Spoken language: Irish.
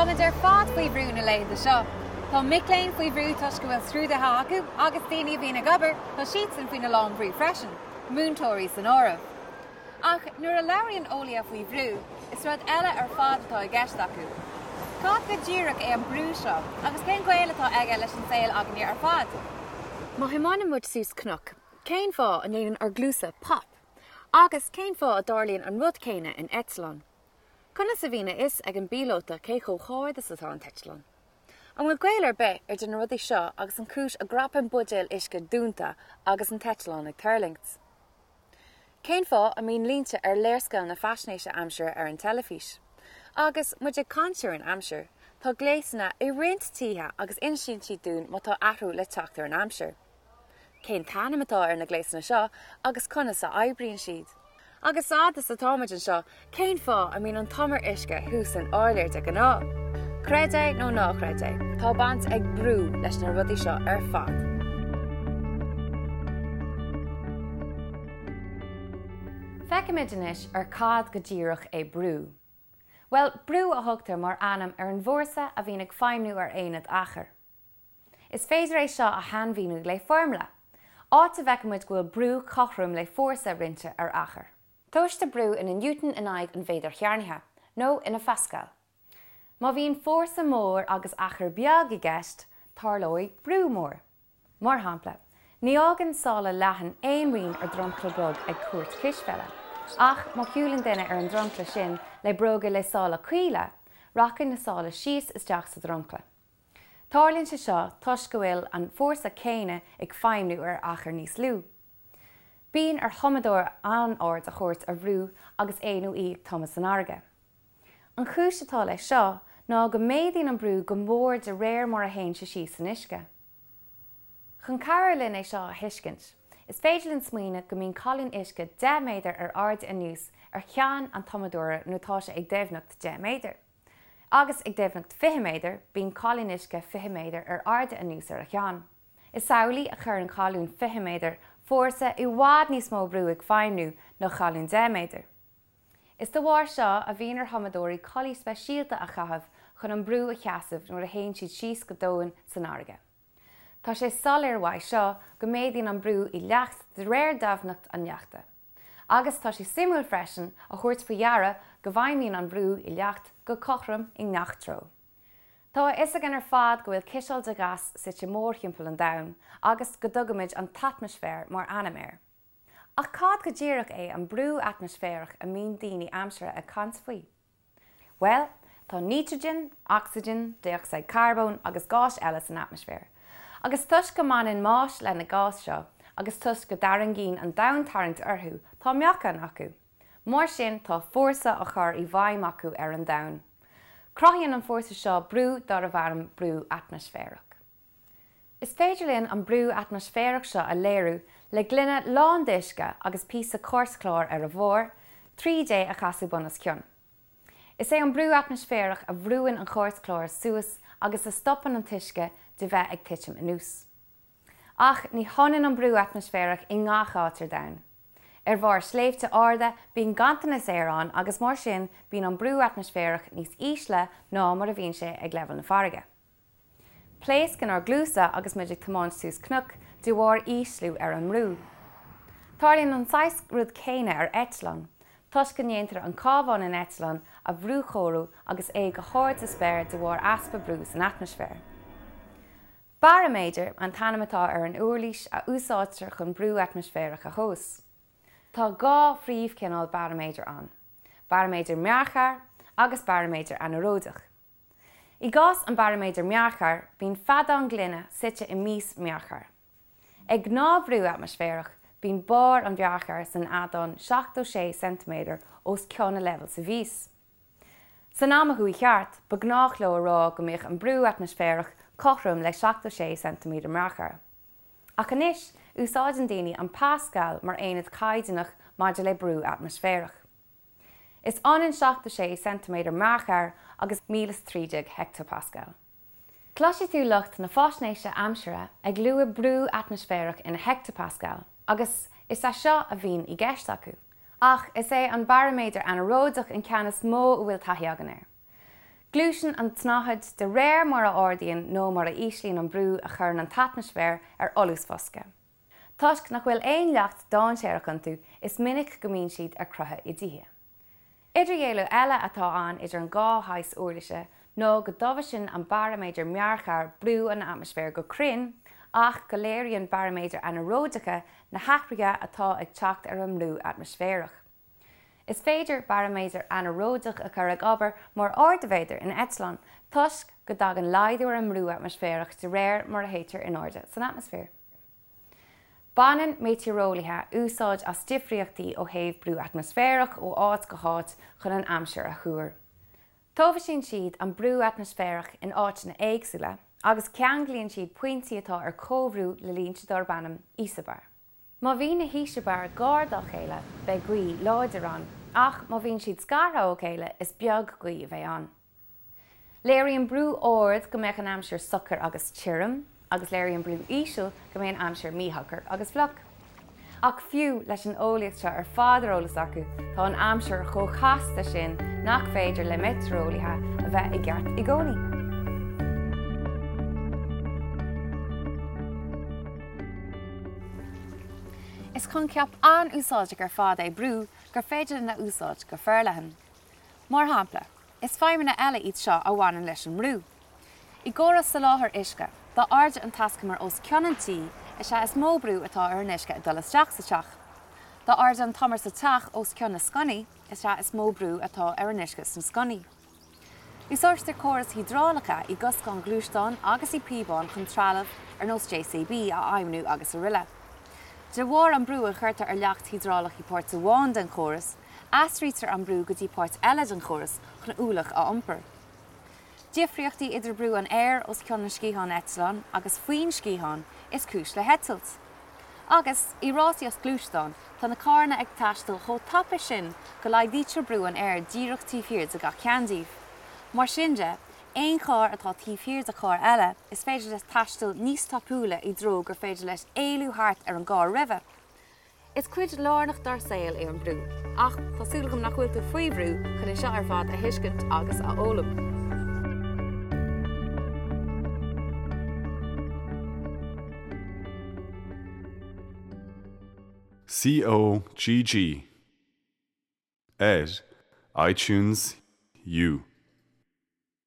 Táimid ar fad faoi bhrú na laethanta seo. Tá mic léinn faoi bhrú toisc go bhfuil scrúduithe acu agus daoine a bhíonn ag obair, tá siadsan faoina lán brú freisin, múinteoirí san áireamh. Ach nuair a labhraíonn eolaithe faoi bhrú, is rud eile ar fad atá i gceist acu. Cad go díreach é an brú seo agus cén gaol atá aige leis an saol againne ar fad? Má thiomáineann muid suas cnoc, cén fáth a ndéanann ár gcluasa pop? Agus cén fáth a dtarlaíonn an rud céanna in eitleán? Conas a bhíonn a fhios ag an bpíolóta cé chomh hard is atá an t-eitleán? An bhfuil gaol ar bith idir na rudaí seo agus an chúis a gcrapann buidéal uisce dúnta agus an t-eitleán ag tuirlingt? Cén fáth a mbíonn línte ar léarscáileanna faisnéise aimsire ar an teilifís? Agus muid ag caint ar an aimsir, tá gléasanna i roinnt tithe agus insíonn siad dúinn má tá athrú le teacht ar an aimsir. Cén t-ainm atá ar na gléasanna seo agus conas a oibríonn siad? Agus fad is atáimid anseo, cén fáth a mbíonn an t-umar uisce thuas san áiléar de ghnáth? Creid é nó ná creid é, tá baint ag brú leis na rudaí seo ar fad. Feicfimid anois ar cad go díreach é brú. Bhuel, brú a thugtar mar ainm ar an bhfórsa a bhíonn ag feidhmiú ar aonad achair. Is féidir é seo a shainmhíniú le foirmle, áit a bhfeicimid go bhfuil brú cothrom le fórsa roinnte ar achar. Tomhaistear brú ina Newton in aghaidh an mhéadair chearnaithe, nó ina Phascal. Má bhíonn fórsa mór agus achar beag i gceist, tarlóidh brú mór. Mar shampla, ní fhágann sála leathan aon rian ar dhromchla bog ag cúirt cispheile, ach má shiúlann duine ar an dromchla sin le bróga le sála caola, rachaidh na sála síos isteach sa dromchla. Tarlaíonn sé seo toisc go bhfuil an fórsa céanna ag feidhmiú ar achar níos lú. Bíonn ar thumadóir an-aird a thabhairt ar bhrú agus é nó í ag tumadh san fharraige. An chúis atá leis seo ná go méadaíonn an brú go mór de réir mar a théann sé síos san uisce. Chun cabhrú linn é seo a thuiscint, is féidir linn smaoineamh go mbíonn colún uisce 10 méadar ar airde anuas ar cheann an tumadóra nuair atá sé ag doimhneacht 10 méadar. Agus ag doimhneacht 20 méadar, bíonn colún uisce 20 méadar ar airde anuas ar a cheann. Is amhlaidh a chuireann colún 20 méadar fórsa i bhfad níos mó brú ag feidhmiú ná colún 10 méadar. Is de bharr seo a bhíonn ar thumadóirí culaith speisialta a chaitheamh chun an brú a sheasamh nuair a théann siad síos go domhain san fharraige. Tá sé soiléir uaidh seo go méadaíonn an brú i leacht de réir doimhneacht an leachta. Agus tá sé suimiúil freisin a thabhairt faoi deara go bhfeidhmíonn an brú i leacht go cothrom i ngach treo. Tá a fhios againn ar fad go bhfuil ciseal de ghas suite mórthimpeall an domhain agus go dtugaimid an t-atmaisféar mar ainm air. Ach cad go díreach é an brú atmaisféarach a mbíonn daoine aimsire ag caint faoi? Bhuel, tá nítrigin, ocsaigin, dé-ocsaíd carbóin agus gáis eile san atmaisféar. Agus toisc go mbaineann mais leis na gáis seo, agus toisc go dtarraingíonn an domhantarraingt orthu, tá meáchan acu. Mar sin, tá fórsa á chur i bhfeidhm acu ar an domhan. Cruthaíonn an fórsa seo brú darbh ainm brú atmaisféarach. Is féidir linn an brú atmaisféarach seo a léiriú le gloine lán d'uisce agus píosa cairtchláir ar a bharr, tríd é a chasadh bun os cionn. Is é an brú atmaisféarach a bhrúann an cairtchlár suas agus a stopann an t-uisce de bheith ag titim anuas. Ach ní hionann an brú atmaisféarach i ngach áit ar domhan. Ar bharr sléibhte arda bíonn ganntanas aeir ann agus mar sin bíonn an brú atmaisféarach níos ísle ná mar a bhíonn sé ag leibhéal na farraige. Pléascann ár gcluasa agus muid ag tiomáint suas cnoc de bharr ísliú ar an mbrú. Tarlaíonn an saghas rud céanna ar eitleán, toisc go ndéantar an cábhán in eitleán a bhrúchóiriú agus é go hard sa spéir de bharr easpa brú san atmaisféar. Baraiméadar an t-ainm atá ar an uirlis a úsáidtear chun brú atmaisféarach a thomhas. Tá dhá phríomhchineál baraiméadar ann, baraiméadar mearchair agus baraiméadar anaeróideach. I gcás an baraiméadair mearchair, bíonn feadán gloine suite i mias mearchair. Ag gnáthbhrú atmaisféarach, bíonn barr an mhearchair san fheadán 76 ceintiméadar os cionn a leibhéil sa mhias. San am a chuaigh thart, ba ghnách leo a rá go mbeadh an brú atmaisféarach cothrom le 76 ceintiméadar mearchair. Ach anois, úsáideann daoine an pascal mar aonad caighdeánach maidir le brú atmaisféarach. Is ionann 76 ceintiméadar mearchair agus 1013 heicteapascal. Cloisfidh tú lucht na faisnéise aimsire ag lua brú atmaisféarach ina heicteapascail agus is é seo a bhíonn i gceist acu. Ach is é an baraiméadar anaeróideach an ceann is mó a bhfuil taithí againn air. Gluaiseann an tsnáthaid de réir mar a ardaíonn nó mar a íslíonn an brú a chuireann an t-atmaisféar ar fholúsbhosca. Toisc nach bhfuil aon leacht dainséarach iontu, is minic go mbíonn siad ar crochadh i dtithe. Idirdhealú eile atá ann idir an dhá shaghas uirlise ná go dtomhaiseann an baraiméadar mearcair brú an atmaisféir go cruinn ach go léiríonn baraiméadair anaeróideacha na hathruithe atá ag teacht ar an mbrú atmaisféarach. Is féidir baraiméadar anaeróideach a chur ag obair mar ardaiméadar in eitleán toisc go dtagann laghdú ar an mbrú atmaisféarach de réir mar a théitear in airde san atmaisféar. Baineann meitéareolaithe úsáid as difríochtaí ó thaobh brú atmaisféarach ó áit go háit chun an aimsir a thuar. Tomhaiseann siad an brú atmaisféarach in áiteanna éagsúla agus ceanglaíonn siad pointí atá ar comhbhrú le línte darb ainm íosabar. Má bhíonn na híseabair gar dá chéile, beidh gaoth láidir ann, ach má bhíonn siad scartha ó chéile, is beag gaoth a bheidh ann. Léiríonn brú ard go mbeadh an aimsir socair agus tirim, agus léiríonn brú íseal go mbeidh an aimsir míshocair agus fliuch. Ach fiú leis an eolaíocht seo ar fad ar eolas acu, tá an aimsir chomh casta sin nach féidir le meitéareolaithe a bheith i gceart i gcónaí. Is coincheap an-úsáideach ar fad é brú gur féidir linn a úsáid go forleathan. Mar shampla, is feidhmeanna eile iad seo a bhaineann leis an mbrú. I gcóras soláthair uisce, dá airde an taiscumar os cionn an tí, is ea is mó brú atá ar an uisce ag dul isteach sa teach. Dá airde an t-umar sa teach os cionn na sconnaí, is ea is mó brú atá ar an uisce sna sconnaí. Úsáidtear córais hiodrálacha i gcoscáin ghluaisteán agus i bpíobáin chun trealamh ar nós JCB a fheidhmniú agus araile. De bharr an brú a chuirtear ar leacht hiodrálach i páirt amháin den chóras, aistrítear an brú go dtí páirt eile den chóras chun ualach a iompar. Difríochtaí idir brú an aeir os cionn an sciatháin eitleáin agus faoin sciathán is cúis le heitilt. Agus, i rásaíocht gluaisteán, tá na carranna ag taisteal chomh tapa sin go laghdaítear brú an aeir díreach taobh thiar de gach ceann díobh. Mar sin de, aon charr atá taobh thiar de charr eile, is féidir leis taisteal níos tapúla i dtreo gur féidir leis éalú thart ar an gcarr roimhe. Is cuid lárnach dár saol é an brú, ach tá súil agam nach bhfuil tú faoi bhrú chun é seo ar fad a thuiscint agus a fhoghlaim. COGG ar iTunes U.